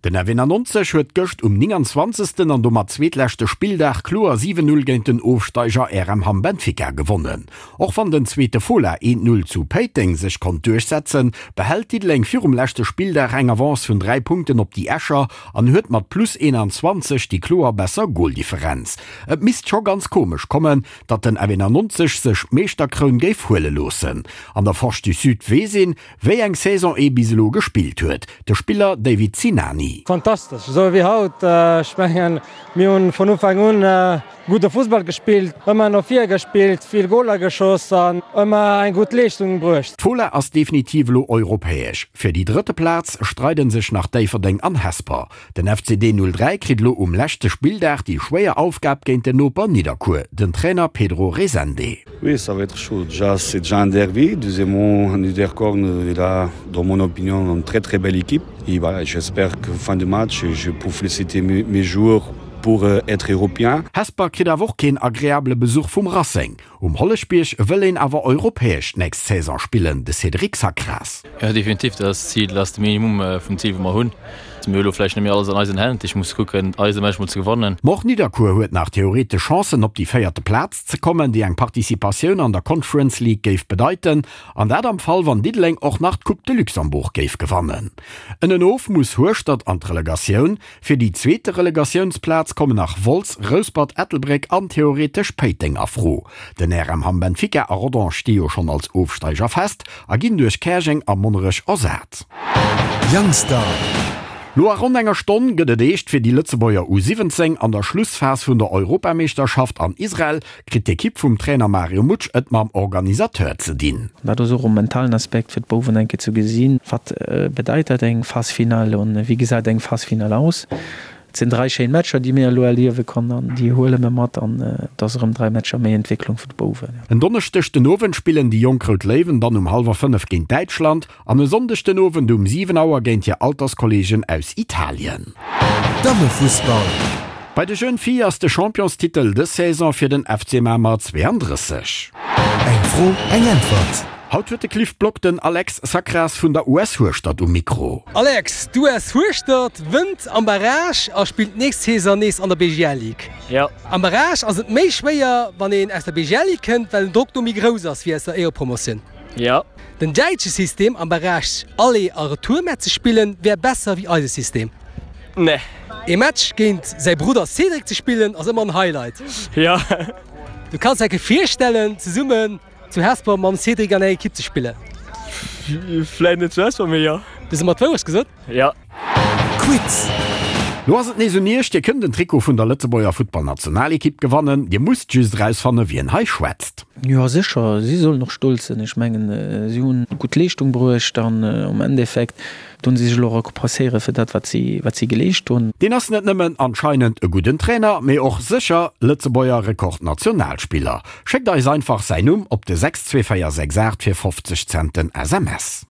Den F91 huet gëscht um 29. An domat zweetleschte Spilldag kloer 7, 0 géint den Ofsteiger RM Hamm Benfica gewonnen. Och wann den zweete Fola 1, 0 zu Péiteng sech konnt duerchsetzen, behält Diddeleng virum leschte Spilldag eng Avance vun 3 Punkten op déi Escher an huet mat plus 21 déi kloer besser Goldifferenz. Et misst scho ganz komesch kommen, datt den F91 sech d'Meeschterkroun géif huele loossen. An der Forge du Sud weess een, Wéi eng Saison ee bis elo gespillt huet, de Spiller David Sinani. Fantastesch, esou wéi haut. Ech mengen, mir hunn vun Ufank un gudde Fussball gespillt, ëmmer no vir gespillt, vill Goler geschoss an ëmmer eng gutt Leeschtung bruecht. D'Fola ass definitiv elo europäesch. Fir déi drëtte Plaz streiden sech nach Déifferdeng an Hesper. Den FCD 03 kritt elo um leschte Spilldag déi schwéier Aufgab géint den Noper Nidderkuer, den Trainer Pedro Rezende. Oui, ça va être chaud. Déjà, c'est déjà un derby. Deuxièmement, Niederkorn, il a, dans mon opinion, une très très belle équipe. Et voilà, j'espère que fin de match, je peux féliciter mes, mes joueurs pour euh, être européen. Hesper kritt awer och keen agreabele Besuch vum Racing. Um Holleschbierg wëll een awer europäesch d'nächst Saison spillen, de Cédric Sacras. Jo definitiv, dat ass d'Zil, dat ass de Minimum vum Zil wou mer hunn. Mir hu lo vläicht net méi alles an eisen Hänn, ech muss kucken eise Match mol ze gewannen. Ma och Nidderkuer huet nach theoretesch Chancen op déi véierte Plaz ze kommen, déi eng Participatioun an der Conference League géif bedeiten, an dat am Fall wann Diddeleng och nach d'Coupe de Luxembourg géif gewannen. Ënnenof muss Hueschtert an d'Relegatioun. Fir déi zweete Relegatiounsplaz kommen nach Wolz, Rouspert, Ettelbréck an theoretesch Péiteng a Fro. Den RM Hamm Benfica a Rodange sti jo schonn als Ofsteiger fest a ginn duerch Käerjeng a Monnerech ersat. Youngstar. No a ronn enger Stonn gëtt et eescht fir déi Lëtzebuerger U17. An der Schlussphas vun der Europameeschterschaft an Israel kritt d'Ekipp vum Trainer Mario Mutsch et mam Organisateur ze dinn. Dat ass och e mentalen Aspekt fir d'Bouwen eng Kéier ze gesinn, wat bedeit dat eng Phase finale an wéi gesäit eng Phase finale aus. Et sinn 3 schéin Matcher déi mir elo erliewe konnen an déi huele mir mat an et ass erëm 3 Matcher méi Entwécklung vun de Bouwen. En Donneschdeg den Owend spillen déi jonk Rout Léiwen dann um hallwer 5 géint Däitschland An e Sonndeg den Owend um 7 Auer géint hir Alterskolleegen aus Italien. Dammefussball. Bei de Jeunes Filles ass de Championstitel dës Saison fir den FC Mamer 32. Eng Fro, eng Äntwert. Haut huet de Cliff Block den Alex Sacras vun der US Hueschtert um Mikro. Alex, d'US Hueschtert wënnt am Barrage a spillt d'nächst Saison nees an der BGL Ligue. Am Barrage ass et méi schwéier, wann een aus der BGL Ligue kënnt, well den Drock do méi grouss ass wéi aus der Éierepromotioun. Jo. Den däitsche System am Beräich Aller a Retourmatch ze spillen wär besser wéi eise System. Nee. Ee Match géint säi Brudder Cédric ze spillen ass ëmmer en Highlight. Jo. Du kanns der virstellen zesummen zu Hesper mam Cédric an enger Ekipp ze spillen? Vläit net zu Hesper, mee jo. Du hues ëmmer d'Wourecht gesot. Jo. Quiz. Lo ass et nees un Iech, Dir kënnt en Trikot vun der Lëtzebuerger Futtballnationalekipp gewannen. Dir musst just erausfanne wien hei schwätzt. Jo sécher, si sollen och stolz sinn. Ech mengen, si hunn gutt Leeschtung bruecht an um Endeffekt hunn si sech elo rekompenséiere fir dat, wat si, wat si geleescht hunn. Deen ass net nëmmen anscheinend e gudden Trainer, mee och sécher Lëtzebuerger Rekordnationalspiller. Schéckt eis einfach säin Numm op de 62468 fir 50 Cent den SMS.